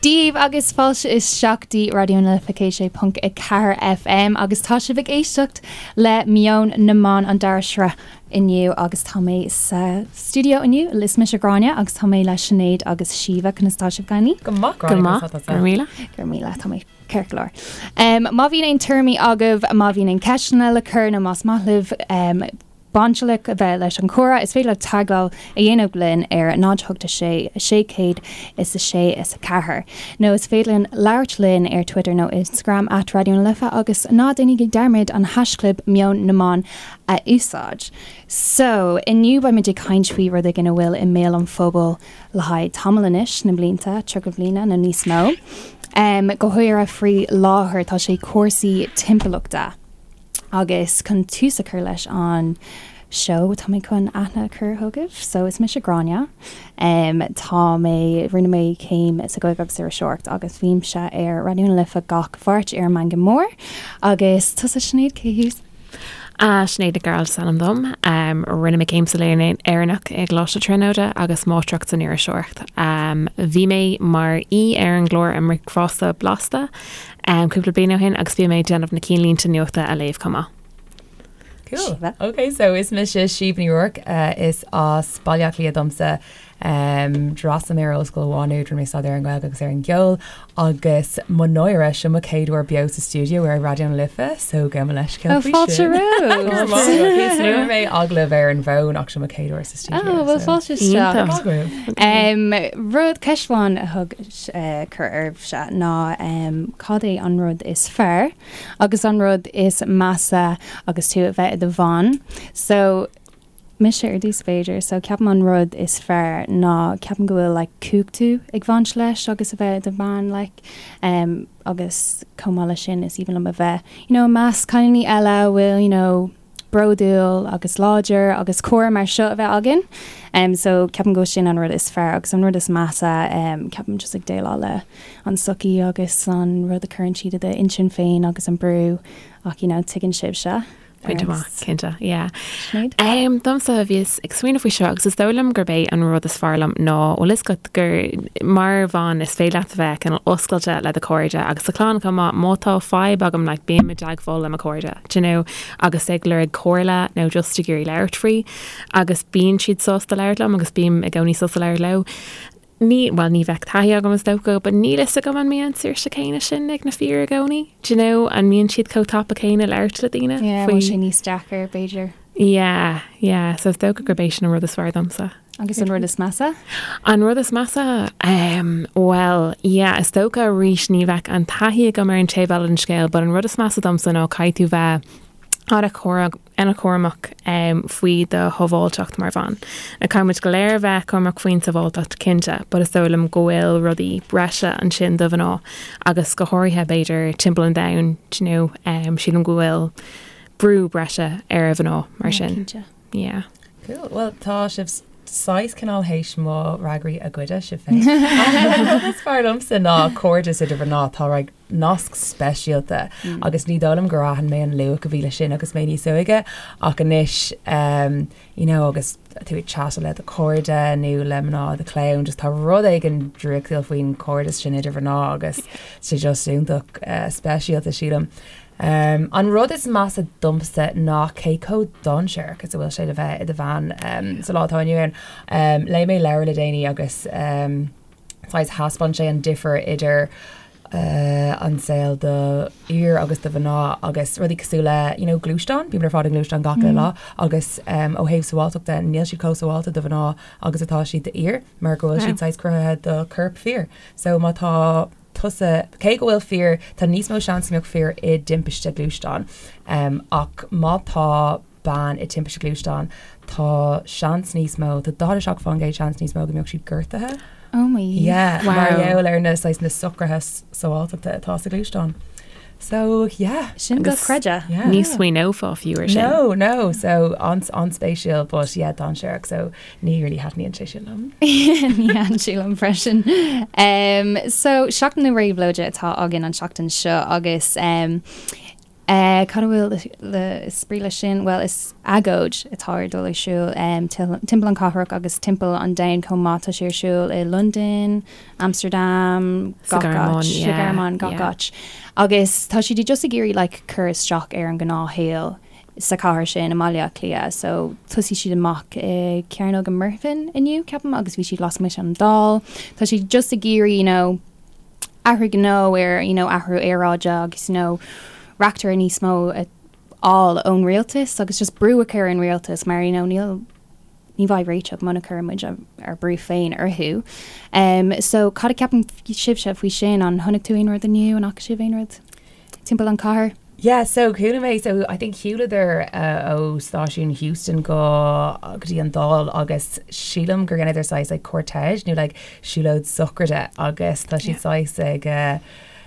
Dia daoibh agus fáilte isteach go dtí Raidió na Life 106.4 FM agus tá sibh ag éisteacht le Meon na mBan an dara sraith inniu agus tá mé sa stiúideo inniu, is mise Gráinne agus tá mé le Sinéad agus Síomha, conas tá sibh cailíní? Go maith Gráinne, Go maith, conas tá tusa? Go raibh míle. Go raibh míle, tá mé ceart go leor. Má bhíonn aon tuairimí agaibh, má bhíonn aon ceisteanna le cur nó más maith libh bainteach a bheith leis an chomhrá, is féidir libh teagmháil a dhéanamh linn ar 0 8 6 606 4 nó is féidir linn labhairt linn ar Twitter nó Instagram at Raidió na Life agus ná déanaigí dearmad an haischlib Meon na mBan a úsáid. So, inniu beimid ag caint faoi rud éigin a bhfuil i mbéal an phobail le haghaidh tamall anois, na blianta, 30 bliana nó níos mó. Go háirithe faoi láthair tá sé cúrsaí timpeallachta. Agus chun tús a chur leis an seó tá mé chun aithne a chur chugaibh. So is mise Gráinne. Tá mé, rinne mé céim sa Ghaeilge agus Iriseoireacht agus bímse ar Raidió na Life gach Mháirt ar an Meangadh Mór. Agus tusa Sinéad, cé thú? Sinéad Nic Gearailt is ainm dom. Rinne mé céim sa Léann Éireannach i gColáiste Tríonóide agus Máistreacht san Iriseoireacht. Bhí mé mar aoi ar an gclár I mBricfeasta Blasta cúpla bliain ó shin agus bhí mé ag déanamh na cinnlínte nuachta a léamh chomh maith. Cool. Ok, so is mise Síomha Ní Ruairc, is as Baile Átha Cliath domsa. D'fhreastail mé ar Ollscoil Mhá Nuad, rinne mé staidéar ar an Ghaeilge agus ar an gceol agus mo náire, seo mo chéad uair beo sa stiúideo ar Raidió na Life, so gabh mo leithscéal Oh, faoi fáilte sin. romhat! Rinne mé agallamh ar an bhfón ach seo mo chéad uair sa stiúideo. Oh, well so. fáilte isteach. Iontach. Maith agaibh. Rud, ceist amháin a thug cur oraibhse ná cad é an rud is fearr agus an rud is measa agus tú a bheith i do bhean. So, mise ar dtús b'fhéidir. So ceapaim an rud is fearr ná ceapaim go bhfuil like cumhachtú ag bhaint leis agus a bheith i do bhean like um agus chomh maith leis sin is aoibhinn liom a bheith you know i measc cailíní eile a bhfuil you know bródúil agus láidir agus comhrá mar seo a bheith againn. Um so ceapaim go bhfuil sin an rud is fearr agus an rud is measa um ceapaim just ag déileáil le an sochaí agus an rud a chuireann siad i d'intinn féin agus an brú ach you know tuigeann sibhse. Pointe maith, cinnte, yeah. Sinéad? Um, domsa bhíos ag smaoineamh faoi seo agus is dóigh liom gurb é an rud is fearr liom ná bhfuil fhios agat gur mar bhean is féidir leat a bheith cineál oscailte le do chairde agus do chlann chomh maith má tá fadhb agam like bím i dteagmháil le mo chairde do you know agus ag lorg comhairle nó just ag iarraidh labhairt faoi agus bíonn siad sásta labhairt liom agus bím i gcónaí sásta labhairt leo. Ní, bhuel, ní bheadh taithí agam is dócha, but níl fhios agam an mbíonn an saoirse céanna sin ag na fir i gcónaí. Do you know, an mbíonn siad chomh tapa céanna labhairt le daoine Yeah, faoi. bhfuil sé níos deacair, b'fhéidir. Yeah, yeah, so is dócha gurb é sin an rud is fearr domsa. Agus an rud is measa? An rud is measa? Um, well, yeah, is dócha arís ní bheadh an taithí agam ar an taobh eile den scéal, but an rud is measa domsa ná caithfidh tú bheith an-chúramach faoi do shábháilteacht mar bhean. Now caithfidh muid go léir a bheith cúramach faoin sábháilteacht cinnte, but is dóigh liom go bhfuil rudaí breise ansin do mhná agus go háirithe b'fhéidir timpeall an domhain, do you know, sílim go bhfuil brú breise ar mhná mar sin. Cinnte. Yeah. Cool. Well, tá sibh saghas cineál théis mo fhreagraí a ghoideadh sibh féin. An rud is fearr liomsa ná cairdeas idir mhná. Tá like, nasc speisialta agus ní dóigh liom gur aithin mé an luach a bhí leis sin agus mé níos óige ach anois um, you know, agus tú ag chat le do chairde nó le mná do chlann just tá rud éigin draíochtúil faoin chairdeas sin idir mhná agus sé just iontach uh, speisialta sílim. Um, an rud is measa domsa ná cé chomh dainséarach is a bhfuil sé le bheith i do bhean um, sa lá atá inniu ann. Um, léigh mé leabhar le déanaí agus um, saghas thaispeáin sé an difear idir an saol do fhir agus do mhná agus rudaí cosúil le you know gluaisteán, bímid ar fad i ngluaisteán gach uile lá agus um, ó thaobh sábháilteachta níl siad chomh sábháilte do mhná agus atá siad d'fhir mar go bhfuil siad saghas cruthaithe do chorp fir. So má tá tusa, cé go bhfuil fir, tá níos mó seans go mbeadh fir i dtimpiste gluaisteáin um, ach má tá bean i dtimpiste gluaisteáin, tá seans níos mó, tá 47% seans níos mó go mbeadh siad gortaithe. Oh my. Yeah, Wow. mar gheall ar na saghas na socruithe sábháilteachta atá sa ghluaisteán. So, yeah. Sin dochreidte. Yeah. Ní smaoineofá fiú ar sin. No, no, so an-spéisiúil, but yeah, dainséarach, so ní really thaitníonn sé sin liom. Ní thaitníonn sé liom freisin. Um, so, Seachtain na Réabhlóide atá againn an seachtain seo agus um, Cad a bhfuil le is brí leis sin? Bhuel, is agóid atá ar dul ar siúl timpeall an cathrach agus timpeall an domhain chomh maith. Tá sé ar siúl i Londain, Amsterdam, Sa gach Ghearmáin, áit, sa yeah, Ghearmáin, gach yeah. áit. Agus tá siad just ag iarraidh like cur isteach ar an ngnáthshaol sa chathair sin i mBaile Átha Cliath. So thosaigh siad amach i Cearnóg an Mhuirfean inniu, ceapaim, agus bhí siad lasmuigh den Dáil. Tá siad just ag iarraidh, you know, athrú gnó ar you know athrú aeráide agus you know reachtaire níos mó a fháil ón rialtas agus just brú a chur ar an rialtas mar you know níl ní bheidh réiteach muna gcuireann muid ár brú féin orthu. Um, so cad a ceapann sibhse faoi sin? An chonaic tú aon rud inniu? An fhaca sibh aon rud timpeall an chathair? Yeah, so chuala mé, so I think shiúladar uh, ó stáisiún Heuston go go dtí an Dáil agus sílim gur dheineadar saghas like cortège nó like siúlóid sochraide agus tá siad saghas ag uh,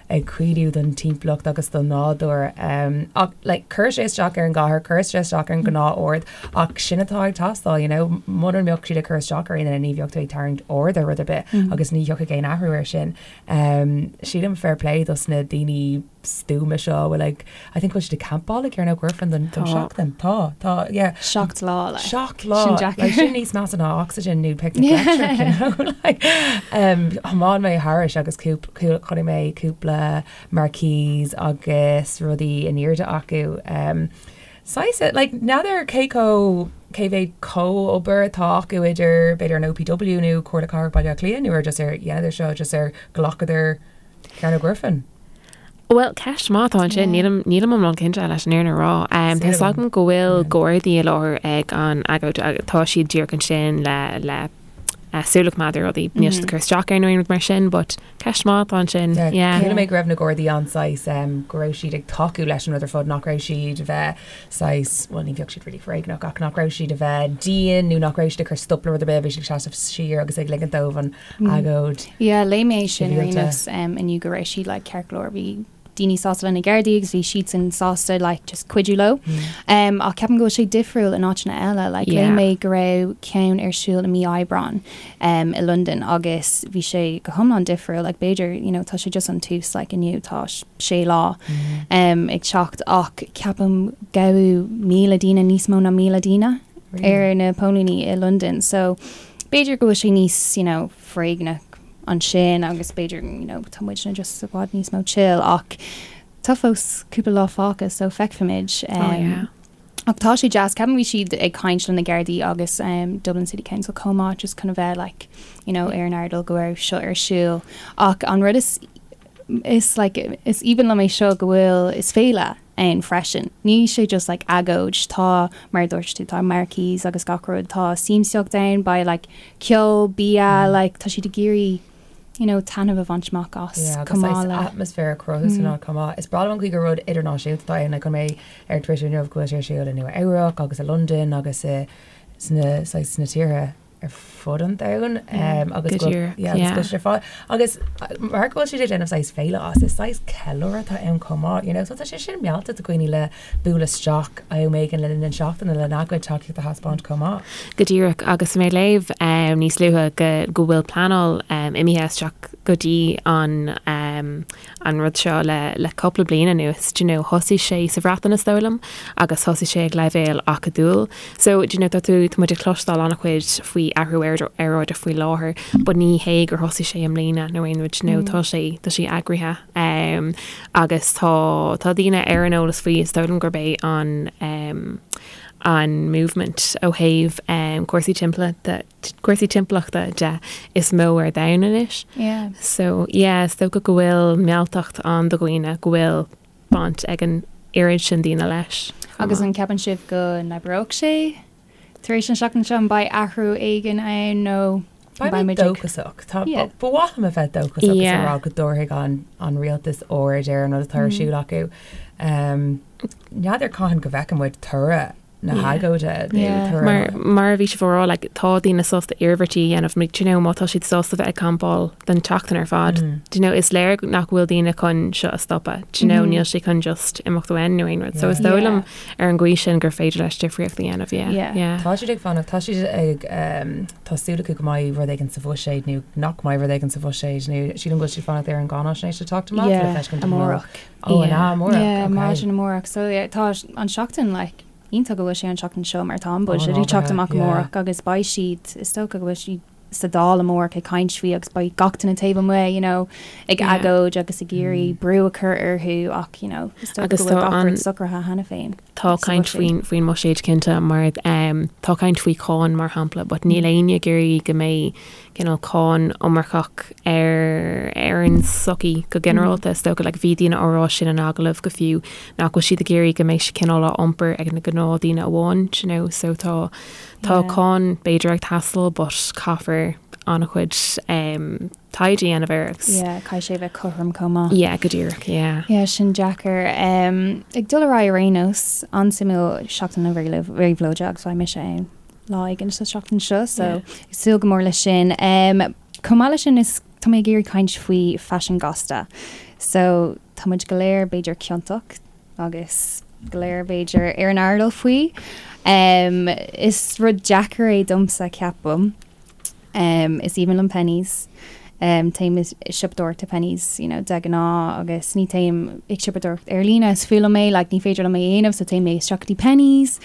ag caoineadh don timpeallacht agus don nádúr. Um, ach like, chuir sé isteach ar an gcathair, chuir sé isteach ar an gnáth-ord ach sin atá ag teastáil, you know, muna mbeadh siad ag cur isteach ar aon duine ní bheadh tú ag tarraingt aird ar rud ar bith agus ní thiocfaidh aon athrú air sin. Um, sílim fair play dos na daoine stuama seo a bhfuil ag, I think bhfuil siad ag campáil ag Cearnóg Mhuirfean don don seachtain. Tá, tá, yeah. Seacht lá, like. Seacht lá. Sin deacair. Like, sin níos measa ná oxygen nó picnic electric, you know, like. Um, thiomáin mé thairis agus cúp, chonaic mé cúpla marquees agus rudaí in airde acu. Um, saghas, like, n'fheadar cé chomh, cé mhéad comhobair atá acu idir, b'fhéidir an OPW nó Comhairle Cathrach Bhaile Átha Cliath nó ar just ar dheineadar seo just ar ghlacadar Cearnóg Mhuirfean? Bhuel, ceist maith atá ansin. Nílim, nílim iomlán cinnte leis an fhírinne a rá. Tá fhios agam go bhfuil Gardaí i láthair ag an agóid agus tá siad díreach ansin le, le súil a choimeád ar rudaí. Níl siad ag cur isteach ar nó aon rud mar sin, but ceist maith atá ansin. Yeah. Chuala mé go raibh na Gardaí an-saghas, go raibh siad ag tacú leis an rud ar fad, nach raibh siad a bheith saghas, bhuel ní bheadh siad really foréigneach ach nach raibh siad a bheith dian nó nach raibh siad ag cur stop le rud ar bith, bhí siad ag seasamh siar agus ag ligint dóibh an agóid. Yeah, léigh mé é sin ar aon nós inniu go raibh siad like ceart go leor, bhí daoine sásta le na Gardaí agus bhí siadsan sásta like just cuidiú leo. Um, ach ceapaim go bhfuil sé difriúil in áiteanna eile, like léigh mé go raibh ceann ar siúl i mí Aibreáin um, i Londain agus bhí sé go hiomlán difriúil, like b'fhéidir, you know, tá sé just an tús like inniu tá sé lá um, ag teacht ach ceapaim gabhadh 1,000 daoine níos mó ná 1,000 daoine ar na póilíní i Londain. So b'fhéidir go bhfuil sé níos, you know, foréigneach ansin agus b'fhéidir, you know, tá muidne just i bhfad níos mó chill ach tá fós cúpla lá fágtha so feicfimid. Oh yeah. Ach tá sé deas, ceapaim bhí siad ag caint le na Gardaí agus um, Dublin City Council chomh maith just chun a bheith like, you know, ar an airdeall go raibh seo ar siúl. Ach an rud is is like is aoibhinn liom é seo go bhfuil is féile ann freisin. Ní sé just like agóid, tá, mar a dúirt tú, tá marquees agus gach rud, tá siamsaíocht ann, beidh like ceol, bia, like tá siad ag iarraidh you know taitneamh a bhaint amach as Yeah, agus chomh maith saghas le. atmaisféar a chruthú san áit chomh maith. Is breá liom an chaoi gur rud idirnáisiúnta atá ann, like chonaic mé ar Twitter inniu go bhfuil sé ar siúl i Nua Eabhrac agus i Londain agus i sna saghas sna tíortha ar fud an domhain agus Go díreach, yeah, agus yeah. go bhfuil sé ar fáil. Agus mar go bhfuil siad ag déanamh saghas féile as, is saghas ceiliúradh atá ann chomh maith, you know, so tá sé sin mealltach do dhaoine le bualadh isteach am éigin le linn na seachtaine lena gcuid tacaíocht a thaispeáint chomh maith. Go díreach, agus mé ag léamh níos luaithe go go bhfuil pleanáil imithe isteach go dtí an an rud seo le le cúpla bliain anuas, do you know, thosaigh sé sa Bhreatain is dóigh liom agus thosaigh sé ag leibhéal acadúil. So, do you know, tá tú, tá muid ag cloisteáil an-chuid faoi athrú aeráide faoi láthair but ní hé gur thosaigh sé i mbliana nó aon rud, do you know, tá sé, tá sé eagraithe um, agus tá, tá daoine ar an eolas faoi, is dóigh liom gurb é an um, an movement ó thaobh um, cúrsaí timpeallachta cúrsaí timpeallachta de is mó ar domhan anois. Yeah. So, yeah, is dócha go bhfuil mealltacht ann do dhaoine, go bhfuil baint ag an oiread sin daoine leis. Agus an ceapann sibh go n-oibreoidh sé tar éis an seachtain seo? An mbeidh athrú éigin ann nó Beidh mé dóchasach. Tá, ba mhaith liom a bheith dóchasach agus a rá go dtabharfaidh an, an rialtas aird ar an rud atá ar siúl acu. Um, N'fheadar cathain go bhfeicfidh muid toradh. na hagóide nó Mar mar a bhí sibh á rá like tá daoine sásta iarmhairtí a dhéanamh like do you know má tá siad sásta bheith ag campáil don tseachtain ar fad do you know is léir nach bhfuil daoine chun seo a stopadh do you know níl sé chun just imeacht uainn nó aon rud so is dóigh liom ar an gcaoi sin gur féidir leis difríocht a dhéanamh yeah Yeah. yeah. Tá siad ag fanacht, tá siad ag tá súil acu go mbeidh rud éigin sa bhuiséad nó nach mbeidh rud éigin sa bhuiséad nó sílim go bhfuil siad ag fanacht ar an gcáinaisnéis le teacht amach le Yeah, feiscint an bhfuil amárach. Ó, an ea, amárach? Yeah, Ok. maidin amárach. So yeah, tá an seachtain like iontach go bhfuil sé an seachtain seo mar tá an Ó, budget ag teacht ábhartha, amach yeah. amárach agus beidh siad, is dócha go bhfuil siad sa Dáil amárach ag caint faoi agus beidh gach duine taobh amuigh, you know, ag Yeah. agóid agus ag iarraidh brú a chur orthu ach, you know, is dócha Agus go bhfuil tá gach an- rud socraithe cheana féin. Tá sa caint bhuiséad. faoin faoin mbuiséad cinnte mar um, tá caint faoi cháin mar shampla, but níl éinne ag iarraidh go mbeidh cineál cáin iomarcach ar ar an tsochaí go ginearálta. Is dócha like bhí daoine á rá sin in agallamh go fiú nach bhfuil siad ag iarraidh go mbeidh sé cineál á iompar ag na gnáthdaoine amháin, do you know, so tá tá Yeah. cáin b'fhéidir ag teastáil but caithfear an-chuid um, taighde a dhéanamh air agus Yeah, caithfidh sé a bheith cothrom chomh maith. yeah, go díreach, yeah. Yeah, sin deacair. Um, ag dul ar aghaidh ar aon nós, an-suimiúil Seachtain na Réabhlóide agus beidh mise ann lá éigin sa seachtain seo, so ag súil go mór leis sin. Um, chomh maith leis sin is tá mé ag iarraidh caint faoi faisean gasta. So tá muid go léir b'fhéidir ciontach agus go léir b'fhéidir ar an airdeall faoi. Um, is rud deacair é domsa ceapaim. Um, is aoibhinn liom Penneys. Um, téim ag siopadóireacht i Penneys, you know, de ghnáth agus ní téim ag siopadóireacht ar líne, is fuath liom é, like, ní féidir liom é a dhéanamh, so téim isteach go dtí Penneys.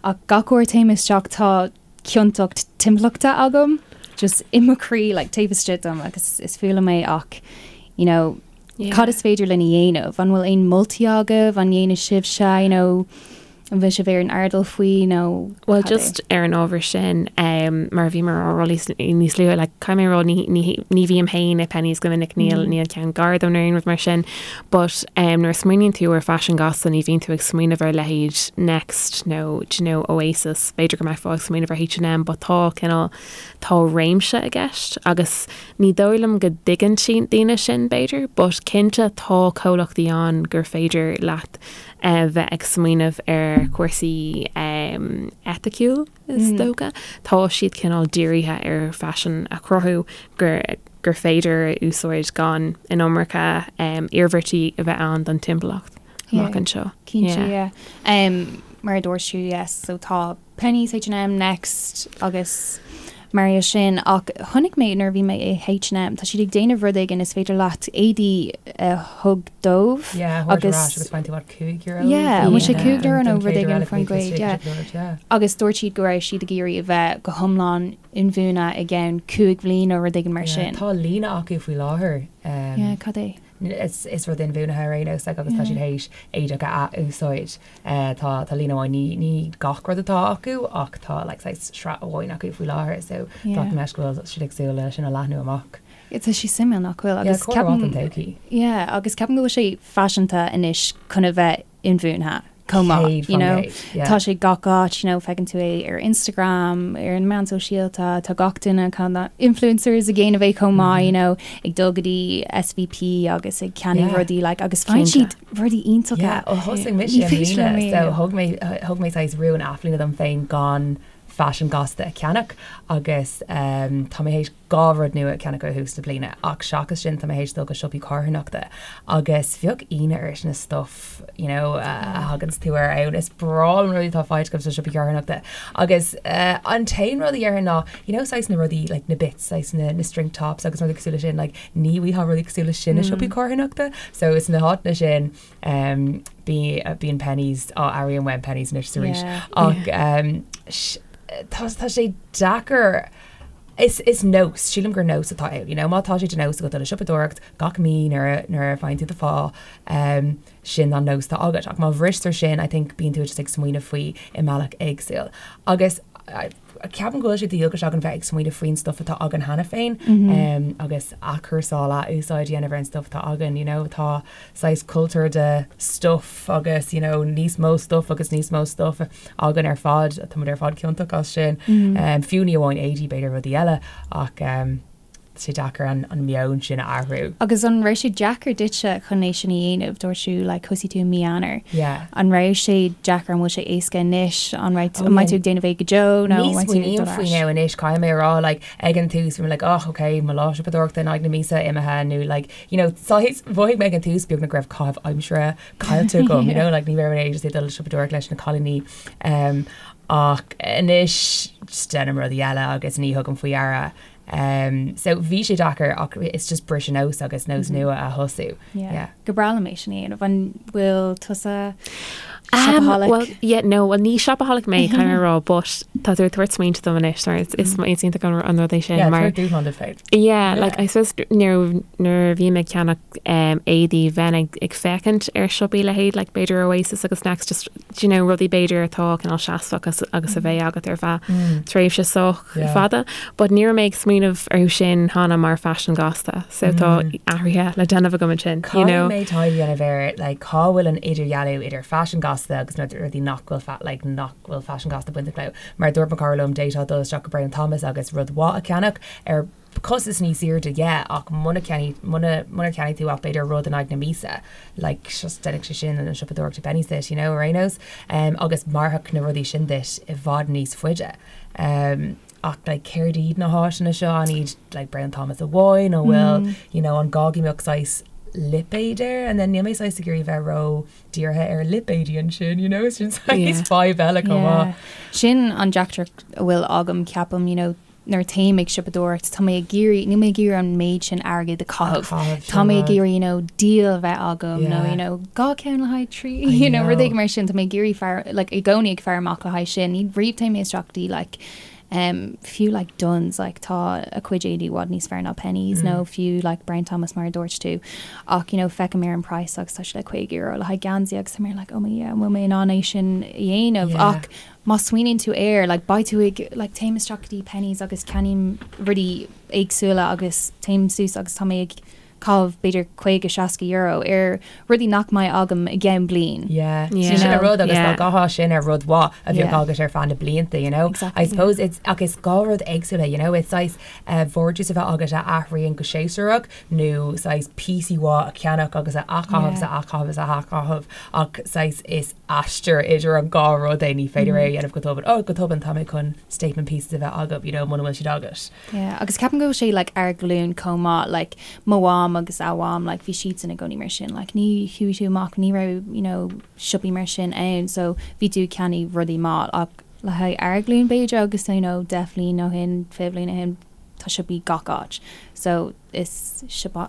Ach gach uair téim isteach tá ciontacht timpeallachta agam, just i mo chroí, like, taobh istigh dom agus is fuath liom é ach, you know, Yeah. cad is féidir linn a dhéanamh? An bhfuil aon moltaí agaibh? An ndéanann sibhse, you know, An bhfuil sibh ar an airdeall faoi nó Well cad é? just ar an ábhar sin um, mar a bhíomar á rá níos níos luaithe like, caithfidh mé a rá ní, ní, ní bhím féin i Penneys go minic níl níl ceann gar dom nó aon rud mar sin but um, nuair a smaoiníonn tú ar faisean gasta ní bhíonn tú ag smaoineamh ar leithéid Next nó do you know, Oasis b'fhéidir go mbeifeá ag smaoineamh ar H&M but tá cineál tá réimse i gceist agus ní dóigh liom go dtuigeann daoine sin b'fhéidir but cinnte tá comhlachtaí ann gur féidir leat a bheith ag smaoineamh ar chúrsaí eiticiúil, is dócha. Tá siad cineál dírithe ar faisean a chruthú gur gur féidir a úsáid gan an iomarca iarmhairtí a bheith ann don timpeallacht amach anseo. Cinnte, yeah. Mar a dúirt tú, yes, so tá Penneys, H&M, Next agus mar é sin ach chonaic mé nuair a bhí mé i H&M tá siad ag déanamh rud éigin is féidir leat éadaí a thug dóibh Yeah, thabhairt ar ais agus faigheann tú what, €5? Yeah, an bhfuil sé €5 nó rud éigin faoin gcuid, yeah. Agus dúirt siad go raibh siad ag iarraidh a bheith go hiomlán inbhuanaithe i gceann 5 bhliain nó rud éigin mar sin. Tá líne acu faoi láthair. Yeah, cad é? Is rud inbhuanaithe ar aon nós like agus tá siad théis éadach a ath-úsáid. Tá tá líne amháin, ní ní gach rud atá acu ach tá like saghas sraith amháin acu faoi láthair so glacaim leis go bhfuil siad ag súil le sin a leathnú amach. Tá sé suimiúil nach bhfuil agus ceapaim don todhchaí. Yeah agus ceapaim go bhfuil sé faiseanta anois chun a bheith inbhuanaithe chomh maith, you know. Tá sé gach áit, you know, feiceann tú é ar Instagram, ar na meáin sóisialta, tá gach duine kind of influencers ag déanamh é chomh maith, you know, ag dul go dtí SVP agus ag ceannach rudaí like agus faigheann siad rudaí iontacha. Yeah, ó thosaigh mise i mbliana, so thug mé thug mé saghas rún athbhliana dom féin gan faisean gasta a cheannach agus tá mé théis 2 rud nua a cheannach ó thús na bliana ach seachas sin tá mé théis dul go siopaí carthanachta agus bheadh ionadh ort na stuff you know a thaganns tú air ann. Is breá liom rudaí atá faighte agam sna siopaí carthanachta agus an t-aon rud a dhéarfainn ná you know saghas na rudaí like na bits saghas na na string tops agus rudaí cosúil leis sin like ní bhfaighfeá rudaí cosúil leis sin i siopaí carthanachta so is na háiteanna sin um bí bíonn Penneys á airím uaim Penneys anois arís ach um tá tá sé deacair Is is nós, sílim gur nós atá ann, you know, má tá sé de nós agat dul ag siopadóireacht gach mí nuair a nuair a faigheann tú do phá, um, sin an nós atá agat. Ach má bhristear sin, I think bíonn tú just ag smaoineamh faoi i mbealach éagsúil. Agus ceapaim go bhfuil sé de dhualgas againn bheith ag smaoineamh faoin stuff atá againn cheana féin, um, agus athchúrsáil, athúsáid a dhéanamh ar an stuff atá againn, you know, tá saghas cultúr de stuff agus, you know, níos mó stuff agus níos mó stuff againn ar fad, tá muid ar fad ciontach as sin. Fiú ní amháin éadaí, b'fhéidir rudaí eile ach sé deacair an meon sin a athrú. Agus an raibh sé deacair duitse chun é sin a dhéanamh? Dúirt tú like thosaigh tú i mí Eanáir. Yeah. An raibh sé deacair, an bhfuil sé éasca anois, an raibh, an mbeidh tú ag déanamh é go deo nó an mbeidh tú ag dul ar ais? Ní smaoiním faoi now anois, caithfidh mé a rá like ag an tús bhí mé like oh ok mo lá siopadóireachta in aghaidh na míosa imithe nó like you know saghas mhothaigh mé ag an tús beagnach go raibh caitheamh aimsire caillte agam you know like ní raibh mé just ag dul siopadóireacht leis na cailíní um, ach anois just déanaim rudaí eile agus ní thugaim faoi deara Um, so bhí sé deacair ach it's just briseadh nós agus nós nua a thosú. Yeah. Yeah. Go breá liom é sin a dhéanamh. An bhfuil tusa Um, shopaholic? well, yeah, no, well, ní shopaholic mé, caithfidh mé a rá, but tá tú ag tabhairt smaointe dom anois, mar is, is, is iontach an, an rud é sin, Yeah, mar tabhair dúshlán duit féin. Yeah, like, I suppose nuair, nuair a bhím ag ceannach um, éadaí bheinn ag, ag féachaint ar siopaí leithéid, like, b'fhéidir Oasis agus Next, just, do you know, rudaí b'fhéidir atá cineál seasmhach agus, agus a bheidh agat ar feadh tréimhse sách fada, but ní raibh mé ag smaoineamh orthu sin cheana mar faisean gasta, so tá athruithe le déanamh agam ansin, you know. Caithfidh mé taighde a dhéanamh ar like cá bhfuil an idirdhealú idir faisean gasta agus na rudaí nach bhfuil fa like nach bhfuil faisean gasta bainteach leo. Mar dúirt mo chara liom d'fhéadfá dul isteach go Brown Thomas agus rud mhaith a cheannach ar costas níos airde yeah ach muna cheannaigh muna munar cheannaigh tú ach b'fhéidir rud in aghaidh na míosa like just déanfaidh sé sin an siopadóireacht i Penneys duit you know ar aon nós um, agus mairfeadh na rudaí sin duit i bhfad níos faide um, ach like céard iad na háiseanna seo an iad like Brown Thomas amháin nó bhfuil mm. you know an gá go mbeadh saghas lipéad air and then níl mé saghas ag iarraidh bheith ró dírithe ar lipéidí ansin you know sin saghas fadhb eile chomh maith. Sin an deacracht a bhfuil agam ceapaim you know nuair téim ag siopadóireacht, tá mé ag iarraidh, níl mé ag iarraidh an méid sin airgid a chaitheamh. Tá mé ag iarraidh, you know, deal a bheith agam nó, you know, 2 ceann le haghaidh 3, you know, rud éigin mar sin. Tá mé ag iarraidh faire, like, i gcónaí ag faire amach le haghaidh sin. Ní riamh téim mé isteach go dtí, like, um, fiú, like, Dunnes, like, tá a cuid éadaí i bhfad níos fearr ná Penneys nó fiú, like, Brown Thomas mar a dúirt tú. Ach, you know, feicim ar an praghas agus tá sé like €50 le haghaidh geansaí agus tá mé like, oh my, yeah, an bhfuil mé in ann é sin a dhéanamh? Ach, má smaoiníonn tú air, like, beidh tú ag, like, téim isteach go dtí Penneys agus ceannaím rudaí éagsúla agus téim suas agus tá mé ag caitheamh b'fhéidir 50, 60 euro ar rudaí nach mbeidh agam i gceann bliain. Yeah. Yeah. Sin an rud agus dá gcaithfeá sin ar rud mhaith a bheadh agat ar feadh na blianta, you know. Exactly. I suppose it's ach is 2 rud éagsúla, you know, it's saghas uh, vardrús a bheith agat a athraíonn go séasúrach nó saghas píosaí mhaith a cheannach agus a athchaitheamh is a athchaitheamh is a athchaitheamh ach saghas is aistear idir an dhá rud é, ní féidir é a dhéanamh go tobann, oh go tobann tá mé chun statement pieces a bheith agam, you know, muna bhfuil siad agat. Yeah, agus ceapaim go bhfuil sé like ár nglúin chomh maith, like mo mham agus a mham, like bhí siadsan i gcónaí mar sin, like ní chuaigh tú amach, ní raibh, you know, siopaí mar sin ann, so bhí tú ag ceannaigh rudaí maith ach le haghaidh ár nglúin b'fhéidir agus you know 10 bhliain ó shin, 20 bhliain ó shin, tá siopaí gach áit, so is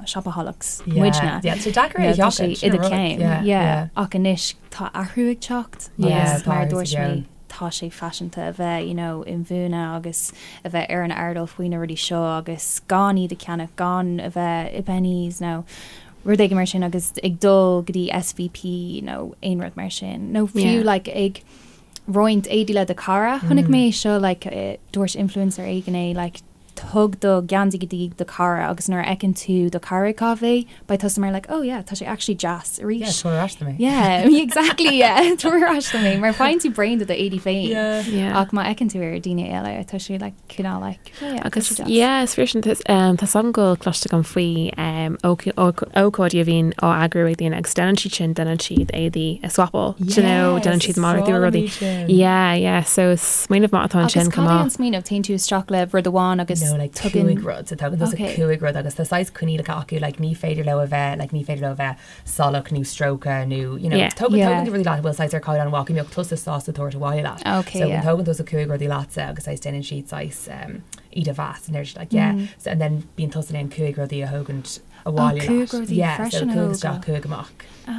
shopaholics muidne. Yeah, tá deacair é a Tá sé sheachaint, i sin do an rud. cheann. Yeah, Yeah. yeah. Ach anois tá athrú ag teacht Yeah, agus tá mar a athrú sa dúirt mé gceann. tá sé faiseanta a bheith you know inbhuanaithe agus a bheith ar an airdeall faoi na rudaí seo agus gan iad a cheannach, gan a bheith i Penneys nó rud éigin mar sin agus ag dul go dtí SVP nó aon rud mar sin nó fiú Yeah. like ag roinnt éadaí le do chara. Chonaic mé seo like eh, dúirt influencer éigin é like Tug do gheansaí go dtí do chara agus nuair a fheiceann tú do chara ag caitheamh é, beidh tusa mar like, oh yeah, tá sé actually deas arís. Yeah, tabhair ar ais dom é. Yeah, exactly, yeah, tabhair ar ais dom é, mar faigheann tú braon de d'éadaí féin. Yeah. Yeah. Ach má fheiceann tú ar daoine eile, tá sé like cineál like, oh yeah, tá Agus sé deas. yeah, is fíor sin tá um, tá a fhios agam go bhfuil cloiste agam faoi um, óc- óc- ócáidí a bhíonn á eagrú ag daoine agus déanann siad sin, déanann siad éadaí a swapáil, do you know, déanann Yes, siad is malartú breá ar liom rudaí. iad sin. Yeah, yeah, so is smaoineamh maith atá Agus ansin cad chomh é maith. an smaoineamh? Téann tú isteach le rud amháin agus No, like tugann. cúig rud. So tugann tusa Okay. cúig rud agus tá saghas coinníollacha acu, like ní féidir leo a bheith, like ní féidir leo a bheith salach nó stróicthe nó, you know, Yeah. tógann Yeah. tógann tú rudaí leat a bhfuil saghas ar caighdeán mhaith go mbeadh tusa sásta tabhairt abhaile leat. Okay, So yeah. tógann tusa cúig rudaí leatsa agus saghas déanann siad saghas um, iad a mheas and they're just like, yeah. So, and then bíonn tusa in ann cúig rudaí a thógaint abhaile Oh, cúig leat. rudaí Yeah, so freisin a cúig isteach, thógáil. cúig amach.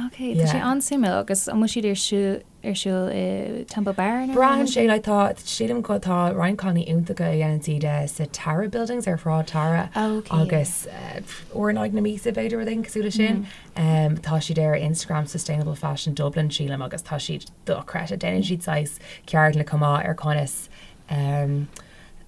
Okay, tá sé Yeah. an-suimiúil agus an bhfuil siad ar siúl ar siúl i Temple Bar nó? Braitheann sé, like, tá, sílim go, tá roinnt cailíní iontacha a dhéanann siad eh, sa Tara Buildings ar Shráid Tara Okay. agus eh, uair in aghaidh na míosa b'fhéidir rud éigin cosúil le sin. Um, tá siad ar Instagram Sustainable Fashion Dublin sílim agus tá siad dochreidte. Déanann siad saghas ceardlanna chomh maith ar conas um,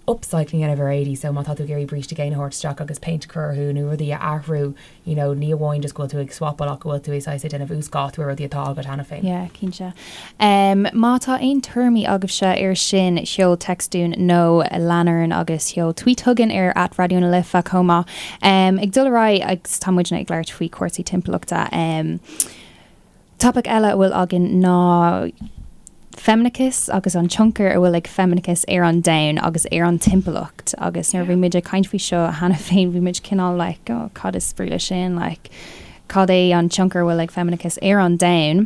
upcycling a dhéanamh ar éadaí so má tá tú ag iarraidh bríste géine a thabhairt isteach agus péint a chur orthu nó rudaí a athrú you know ní amháin just go bhfuil tú ag swapáil ach go bhfuil tú ag saghas ag déanamh uasdátú ar rudaí atá agat cheana féin. Yeah, cinnte. Um, má tá aon tuairimí agaibhse ar sin, seol text dúinn nó lean orainn agus seol tweet chugainn ar at Raidió na Life chomh maith. Um, ag dul ar aghaidh agus tá muidne ag labhairt faoi chúrsaí timpeallachta. Um, Topaic eile a bhfuil againn ná feimineachas agus an tionchar a bhfuil ag feimineachas ar an domhan agus ar an timpeallacht agus nuair a bhí muid ag caint faoi seo cheana féin bhí muid cineál like oh cad is brí leis sin like cad é an tionchar a bhfuil ag feimineachas ar an domhan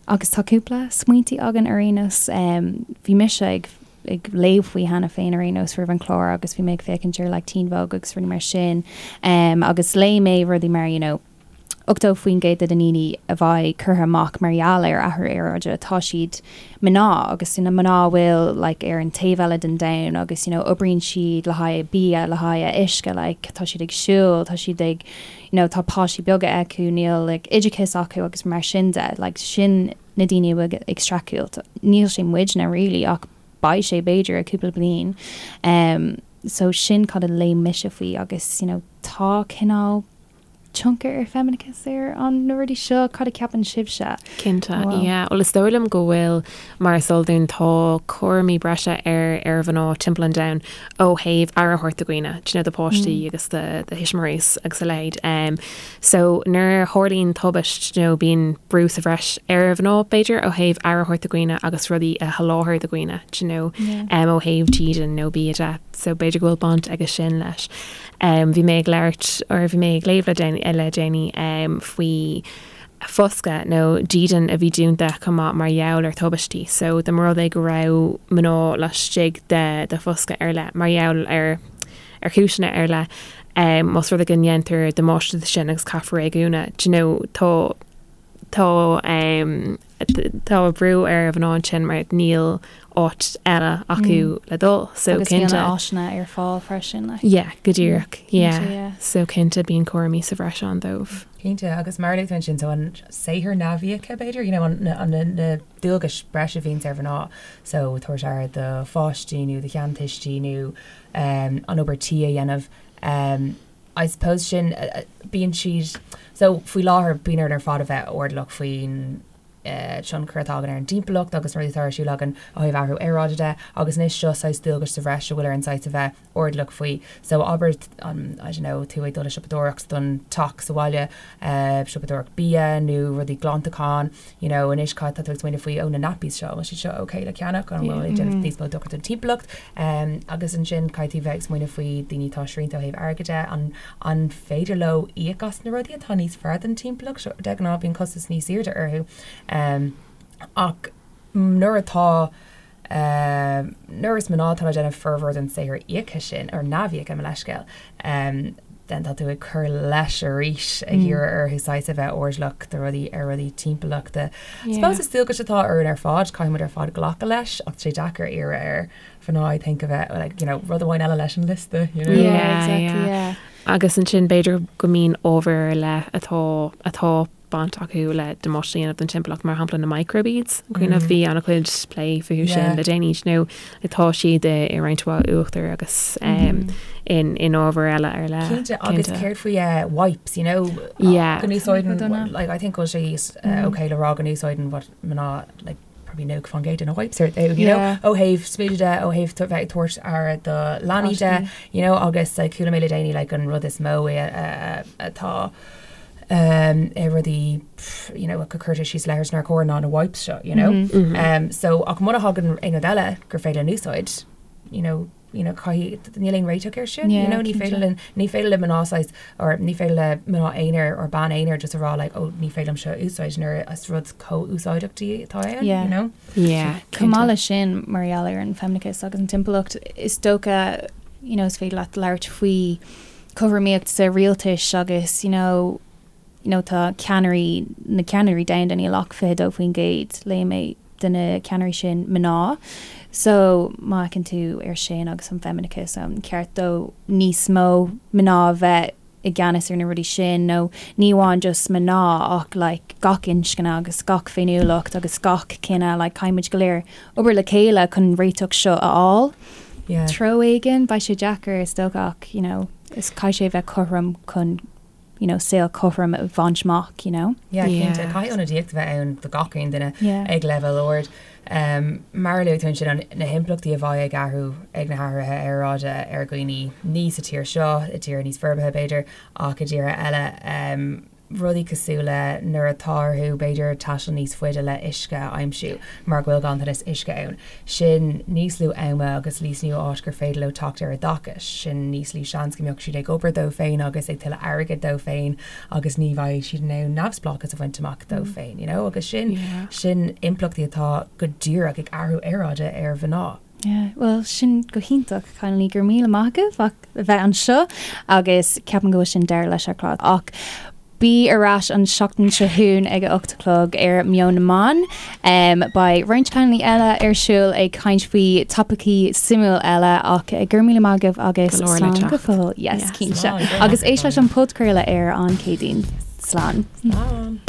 agus tá cúpla smaointí againn ar aon nós um, bhí mise ag ag léamh faoi cheana féin ar aon nós roimh an chlár agus bhí mé ag féachaint ar like Teen Vogue agus rudaí mar sin um, agus léigh mé rudaí mar you know 80% de na ndaoine a bheidh curtha amach mar gheall ar athrú aeráide, tá siad mná agus na mná a bhfuil like ar an taobh eile den domhan agus you know oibríonn siad le haghaidh bia, le haghaidh uisce like tá siad ag siúl, tá siad ag you know tá páistí beaga acu, níl like oideachas acu agus mar sin de, like sin na daoine a bhfuil ag streachailt. Níl sé muidne really ach beidh sé b'fhéidir i cúpla bliain. Um so sin cad a léigh mise faoi agus you know tá cineál tionchar ar feimineachas ar an na rudaí seo? Cad a cheapann sibhse? Cinnte, yeah. Bhuel, is dóigh liom go bhfuil, mar is eol dúinn, tá cúraimí breise ar ar mhná timpeall an domhain ó thaobh aire a thabhairt do dhaoine, do you know, do pháistí agus do do thuismitheoirí agus a leithéid. Um, so nuair a tharlaíonn tubaist, you know, bíonn brú sa bhreis ar mhná, b'fhéidir, ó thaobh aire a thabhairt do dhaoine agus rudaí a sholáthar do dhaoine, do you know, um, ó thaobh dídean nó bia de. So b'fhéidir go bhfuil baint aige sin leis. Bhí mé ag labhairt, or bhí mé ag léamh le déanaí faoi foscadh nó dídean a bhí dúnta chomh maith mar gheall ar tubaistí. So dá mba rud é go raibh mná laistigh de de foscadh ar leith mar gheall ar ar chúiseanna ar leith, más rud é go ndéantar damáiste de sin agus caithfear é a dhúnadh, do you know, tá tá tá brú ar mhná ansin mar níl áit eile acu le dul. So Agus bíonn áiseanna ar fáil freisin. Like. Yeah, go díreach. Yeah. yeah. So cinnte bíonn cúraimí sa bhreis ann dóibh. Cinnte agus mar a luaigh tú ansin so an saothar neamhíoctha b'fhéidir, you know, an, an, na, na dualgais breise a bhíonns ar mhná so tabhairt aire do pháistí nó do sheantuistí nó um, an obair tí a dhéanamh. Um, I suppose sin, bíonn siad, so faoi láthair bíonn orainn ar fad a bheith airdeallach faoin tionchar atá againn ar an dtimpeallacht agus na rudaí atá ar siúl againn ó thaobh athrú aeráide de agus anois seo saghas dualgais sa bhreis a bhfuil orainn saghas a bheith airdeallach faoi. So abair an, I don't know, tú ag dul ag siopadóireacht don teach sa bhaile, siopadóireacht bia nó rudaí glantacháin, you know, anois cad tá tú ag smaoineamh faoi, oh na nappies seo, an bhfuil siad seo ok le ceannach, an bhfuil ag déanamh níos mó dochar don timpeallacht? Um, agus ansin caithfidh tú bheith ag smaoineamh faoi daoine atá srianta ó thaobh airgid de, an, an féidir leo íoc as na rudaí atá níos fearr don timpeallacht? Seo, de ghnáth bíonn costas níos airde orthu. Um, ach nuair atá Nuair is mná atá ag déanamh formhór den saothar íoctha sin, or neamhíoctha, mo leithscéal, then tá tú ag cur leis arís, ag iarraidh orthu saghas a bheith airdeallach do rudaí, ar rudaí timpeallachta. I suppose is dualgas atá orainn ar fad, caithfidh muid ar fad glacadh leis, ach tá sé deacair iarraidh ar mhná, I think, a bheith, like, you know, rud amháin eile leis an liosta, you know? Yeah, exactly, yeah. Agus ansin b'fhéidir go mbíonn ábhair ar leith atá, atá baint acu le damáiste a dhéanamh don timpeallacht, mar shampla na microbeads. An cuimhin libh, bhí an-chuid plé fúthu sin le déanaí, nó tá siad i roinnt mhaith uachtar agus in in ábhair eile ar leith. Cinnte, agus céard faoi wipes, you know, go n-úsáideann, like, I think go bhfuil sé okay le rá go n-úsáideann what mná, like, probably 90% de na wipes ar you know, ó thaobh smididh de, ó thaobh bheith ag tabhairt aire do leanaí de, you know, agus like, chuala mé le déanaí like, an rud is mó atá um, i rudaí you know, go cuirtear síos leithris nár chóir ná na wipes seo, you know. Mm -hmm. um, so ach muna thagann aon rud eile gur féidir linn úsáid, you know, you know, caithfidh níl aon réiteach air sin, you know, ní féidir linn ní féidir le mná saghas or ní féidir le mná aonair or bean aonair just a rá like, oh, ní féidir liom seo a úsáid nuair is rud chomh úsáideach di atá ann, Yeah. you know? Yeah, Chomh maith leis sin, mar gheall ar an feimineachas agus an timpeallacht, is dócha, you know, is féidir leat labhairt faoi cothromaíocht sa rialtais agus, you know, you know, tá ceannairí, na ceannairí domhanda, níl ach 22%, léigh mé, de na ceannairí sin mná. So, má fhéachann tú ar sin agus an feimineachas, an ceart dó níos mó mná a bheith i gceannas ar na rudaí sin nó ní amháin just mná ach like gach inscne agus gach féiniúlacht agus gach cine, like caithfidh muid go léir obair le chéile chun réiteach seo a fháil. Yeah. treo éigin, beidh sé deacair is dócha ach, you know, is caithfidh sé a bheith cothrom chun, you know, saol cothrom a bhaint amach, you know. Yeah, cinnte. Yeah. Caithfidh ionadaíocht a bheith ann do gach aon duine Yeah. ag leibhéal ard. Um, mar a luaigh tú ansin, an- na himpleachtaí a bheidh ag athrú ag na hathruithe aeráide ar dhaoine ní sa tír seo, i dtíortha níos forbartha b'fhéidir, ach i dtíortha eile. Um, rudaí cosúil le nuair atá orthu b'fhéidir taisteal níos faide le uisce a aimsiú mar go bhfuil ganntanas uisce ann. Sin níos lú ama agus níos lú áit gur féidir leo teacht ar oideachas. Sin níos lú seans go mbeadh siad ag obair dóibh féin agus ag tuilleadh airgid dóibh féin agus ní bheidh siad in ann neamhspleáchas a bhaint amach dóibh féin, you know? Agus sin, sin impleachtaí atá go díreach ag athrú aeráide ar mhná. Yeah, bhuel sin go hiontach, cailíní, go raibh míle maith agaibh as a bheith anseo agus ceapaim go bhfuil sin deireadh leis an chlár ach bí ar ais an seachtain seo chugainn ag a 8 a chlog ar Meon na mBan. Um, beidh roinnt cailíní eile ar siúl ag caint faoi topaicí suimiúil eile ach go raibh míle maith agaibh agus Go leor le slán go teacht. fóill. Yes, Yes. cinnte. Slán, Agus éist leis an podchraoladh ar an Céadaoin. Slán. Slán.